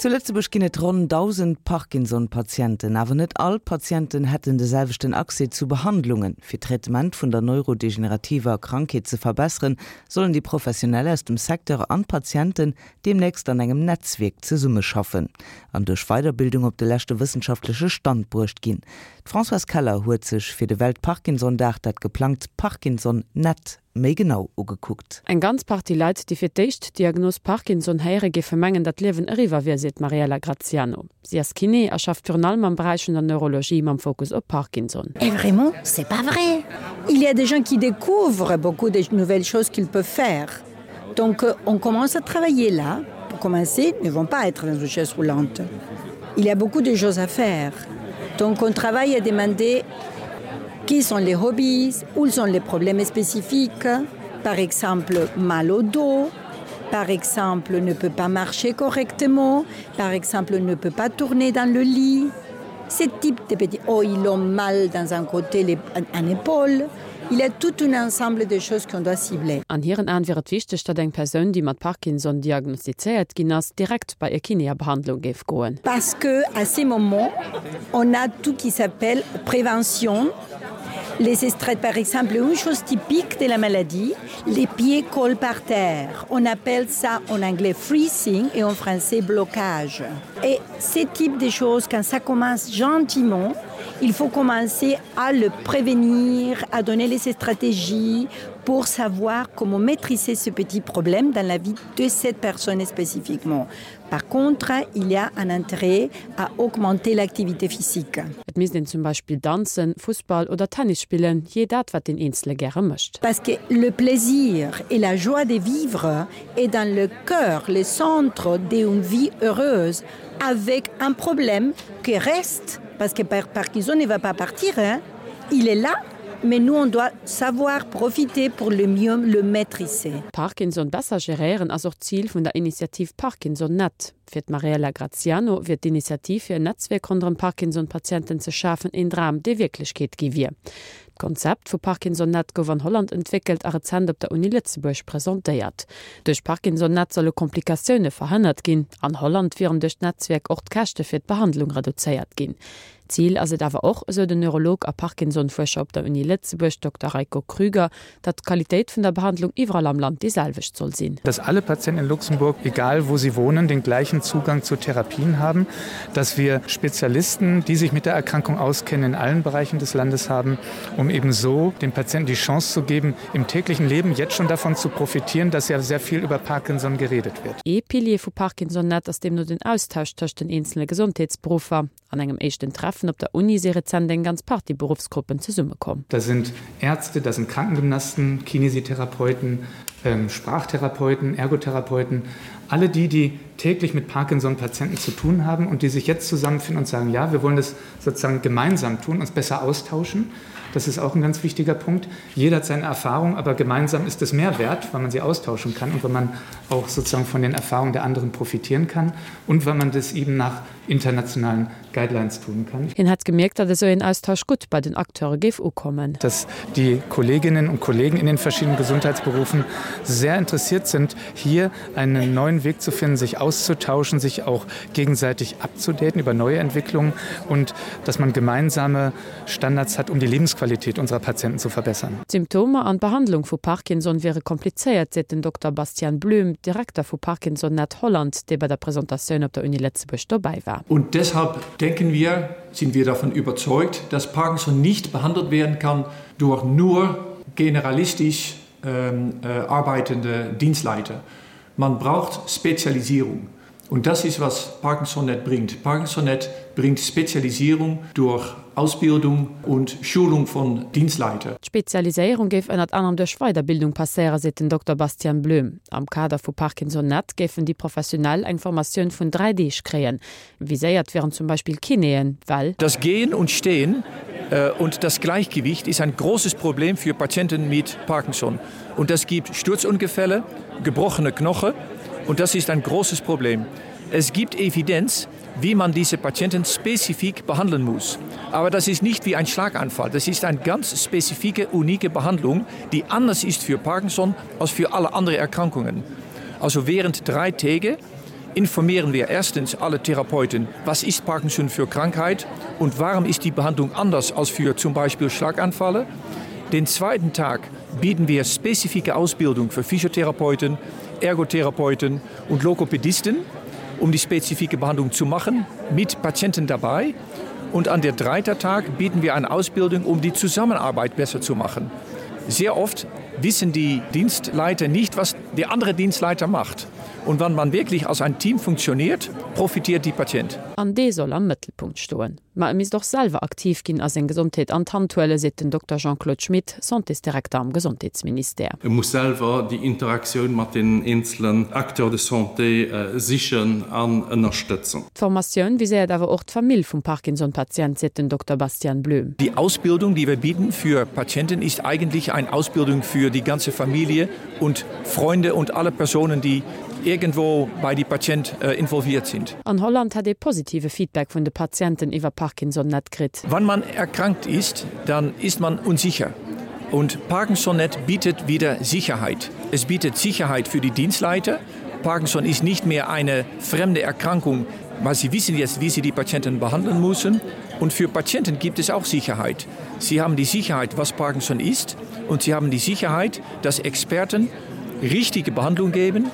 Zu Lëtzebuerg ginn et ronn 1.000 Parkinson-Patienten. Awer net all d'Patienten hätten de selwechten Accès zu Behandlungen. Fir d'Traitement vun der neurodegenerativer Krankheet ze verbesseren, sollen déi Professionell aus dem Secteur an d'Patienten deemnächst an engem Netzwierk zesummeschaffen an duerch Weiderbildung op de leschte wëssenschaftleche Stand bruecht ginn. D'Françoise Keller huet sech fir de Welt-Parkinson-Dag dat geplangt Parkinson-Net méi genau ugekuckt. Eng ganz Partie Leit, déi fir d'éischt d'Diagnos Parkinson héieren, géife mengen, datt d'Liewen eriwwer wier, seet d'Mariella Graziano. Si ass Kiné a schafft virun allem am Beräich vun der Neurologie mam Fokus op Parkinson. Et vraiment, c'est pas vrai! Il y a des gens qui découvrent beaucoup de nouvelles choses qu'ils peuvent faire. Donc on commence à travailler là. Pour commencer, ne vont pas être dans une chaise roulante. Il y a beaucoup de choses à faire. Donc on travaille à demander qui sont les hobbies, où sont les problèmes spécifiques, par exemple mal au dos, par exemple ne peut pas marcher correctement, par exemple ne peut pas tourner dans le lit. Ce type de petits oh, ils ont mal dans un côté les, un, un épaule. Il y a tout un ensemble de choses qu'on doit cibler. An hiren Aen wier et wichteg, datt eng Persoun, déi mat Parkinson diagnostizéiert ginn ass, direkt bei e Kiné a Behandlung géif goen. Parce que à ces moments, on a tout qui s'appelle prévention, les estrades par exemple, une chose typique de la maladie, les pieds collent par terre. On appelle ça en anglais freezing et en français blocage. Et ce type de choses, quand ça commence gentiment, il faut commencer à le prévenir, à donner les stratégies pour savoir comment maîtriser ce petit problème dans la vie de cette personne spécifiquement. Par contre, il y a un intérêt à augmenter l'activité physique. Et misst een zum Beispill danzen, Fussball oder Tennis spillen, jee dat wat deen Eenzele gäre mécht. Parce que le plaisir et la joie de vivre est dans le cœur, le centre d'une vie heureuse avec un problème qui reste parce que par Parkinson ne va pas partir hein. Il est là, mais nous on doit savoir profiter pour le mieux le maîtriser. Parkinson besser geréieren ass och d'Zil vun der Initiativ Parkinson Net. Fir d'Mariella Graziano wier d'Initiativ fir en Netzwierk ronderëm Parkinson-Patienten ze schafen een Dram, dee Wierklechkeet gi wier. D'Konzept vu Parkinson-Net gouf an Holland entwéckelt a rezent op der Uni Lëtzebuerg presentéiert. Duerch Parkinson-Net solle Komplikatioune verhënnert ginn. An Holland wieren duerch d'Netzwierk och d'Käschte fir d'Behandlung reduzéiert ginn. Zil ass et awer och, esou den Neurolog a Parkinson-Fuerscher op der Uni Lëtzebuerg, Dokter Rajko Krüger, datt d'Qualitéit vun der Behandlung iwwerall am Land déi selwecht soll sinn. Dass alle Patienten in Luxemburg, egal wo sie wohnen, den gleichen Zugang zu Therapien haben, dass wir Spezialisten, die sich mit der Erkrankung auskennen, in allen Bereichen des Landes haben, um eben so den Patienten die Chance zu geben, im täglichen Leben jetzt schon davon zu profitieren, dass ja sehr viel über Parkinson geredet wird. Ee Pilier vu ParkinsonNet ass deemno den Austausch tëscht den eenzele Gesondheetsberuffer. An engem éischten Treffen op der Uni si rezent eng ganz Partie Beruffsgruppen zesummekomm. Da sind Ärzte, da sind Krankengymnasten, Kinesitherapeuten, Sprachtherapeuten, Ergotherapeuten, alle die, die täglich mit Parkinson-Patienten zu tun haben und die sich jetzt zusammenfinden und sagen, ja, wir wollen das sozusagen gemeinsam tun, uns besser austauschen. Das ist auch ein ganz wichtiger Punkt. Jeder hat seine Erfahrung, aber gemeinsam ist es mehr wert, weil man sie austauschen kann und weil man auch sozusagen von den Erfahrungen der anderen profitieren kann und weil man das eben nach internationalen Guidelines tun kann. Hien hätt gemierkt, datt esou een Austausch gutt bei den Acteure géif ukommen. Dass die Kolleginnen und Kollegen in den verschiedenen Gesundheitsberufen sehr interessiert sind, hier einen neuen Weg zu finden, sich auszutauschen, sich auch gegenseitig abzudaten über neue Entwicklungen und dass man gemeinsame Standards hat, um die Lebensqualität unserer Patienten zu verbessern. D'Symptomer an d'Behandlung vu Parkinson wiere komplizéiert, seet den Dokter Bastiaan Bloem, Direkter vu Parkinson-Net Holland, dee bei der Presentatioun op der Uni Lëtzebuerg dobäi war. Und deshalb denken wir, sind wir davon überzeugt, dass Parkinson nicht behandelt werden kann durch nur generalistisch arbeitende Dienstleiter. Man braucht Spezialisierung. Und das ist, was ParkinsonNet bringt. ParkinsonNet bringt Spezialisierung durch Ausbildung und Schulung von Dienstleiter. D'Spezialiséierung géif ënnert anerem duerch Weiderbildung passéieren, seet den Dokter Bastian Blöhm. Am Kader vu ParkinsonNet géifen déi Professionell eng Formatioun vun 3 Deeg kréien. Viséiert wieren zum Beispill Kinéen, well. Das Gehen und Stehen und das Gleichgewicht ist ein großes Problem für Patienten mit Parkinson. Und das gibt Sturzungefälle, gebrochene Knoche und das ist ein großes Problem. Es gibt Evidenz, wie man diese Patienten spezifik behandeln muss. Aber das ist nicht wie ein Schlaganfall. Das ist eine ganz spezifike, unique Behandlung, die anders ist für Parkinson als für alle anderen Erkrankungen. Also während drei Tage. informieren wir erstens alle Therapeuten, was ist Parkinson für Krankheit und warum ist die Behandlung anders als für zum Beispiel Schlaganfalle. Den zweiten Tag bieten wir spezifische Ausbildung für Physiotherapeuten, Ergotherapeuten und Lokopädisten, um die spezifische Behandlung zu machen, mit Patienten dabei. Und an der dritten Tag bieten wir eine Ausbildung, um die Zusammenarbeit besser zu machen. Sehr oft wissen die Dienstleiter nicht, was der andere Dienstleiter macht. Und wann man wirklich als ein Team funktioniert, profitiert die Patient. An dee soll am Mëttelpunkt stoen. Ma e misst och selwer aktiv ginn a seng Gesondheet an d'Hand huelen, seet den Dokter Jean-Claude Schmit, Santésdirekter am Gesondheetsministère. E muss selwer déi Interaktioun mat deenen eenzelen Acteurs de santé sichen an ënnerstëtzen. D'Formatioun viséiert awer och d'Famill vum Parkinson-Patient, seet den Dokter Bastian Blöhm. Die Ausbildung, die wir bieten für Patienten, ist eigentlich eine Ausbildung für die ganze Familie und Freunde und alle Personen, die irgendwo bei die Patient involviert sind. An Holland hätt ee positive Feedback vun de Patienten iwwer Parkinson-Net kritt. Wann man erkrankt ist, dann ist man unsicher. Und Parkinson-Net bietet wieder Sicherheit. Es bietet Sicherheit für die Dienstleiter. Parkinson ist nicht mehr eine fremde Erkrankung, weil sie wissen jetzt, wie sie die Patienten behandeln müssen. Und für Patienten gibt es auch Sicherheit. Sie haben die Sicherheit, was Parkinson ist, und sie haben die Sicherheit, dass Experten richtige Behandlung geben,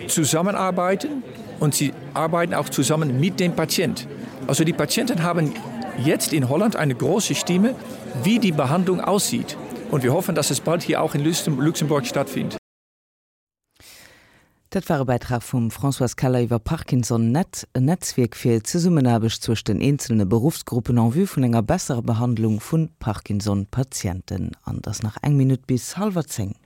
zusammenarbeiten und sie arbeiten auch zusammen mit dem Patient. Also die Patienten haben jetzt in Holland eine große Stimme, wie die Behandlung aussieht. Und wir hoffen, dass es bald hier auch in Luxemburg stattfindet. Dat war e Bäitrag vum Françoise Keller iwwer Parkinson Net, en Netzwierk fir Zesummenaarbecht zwëscht den eenzelne Beruffsgruppen en vue vun enger besserer Behandlung vu Parkinson-Patienten. An et ass nach eng Minutt bis hallwer 10.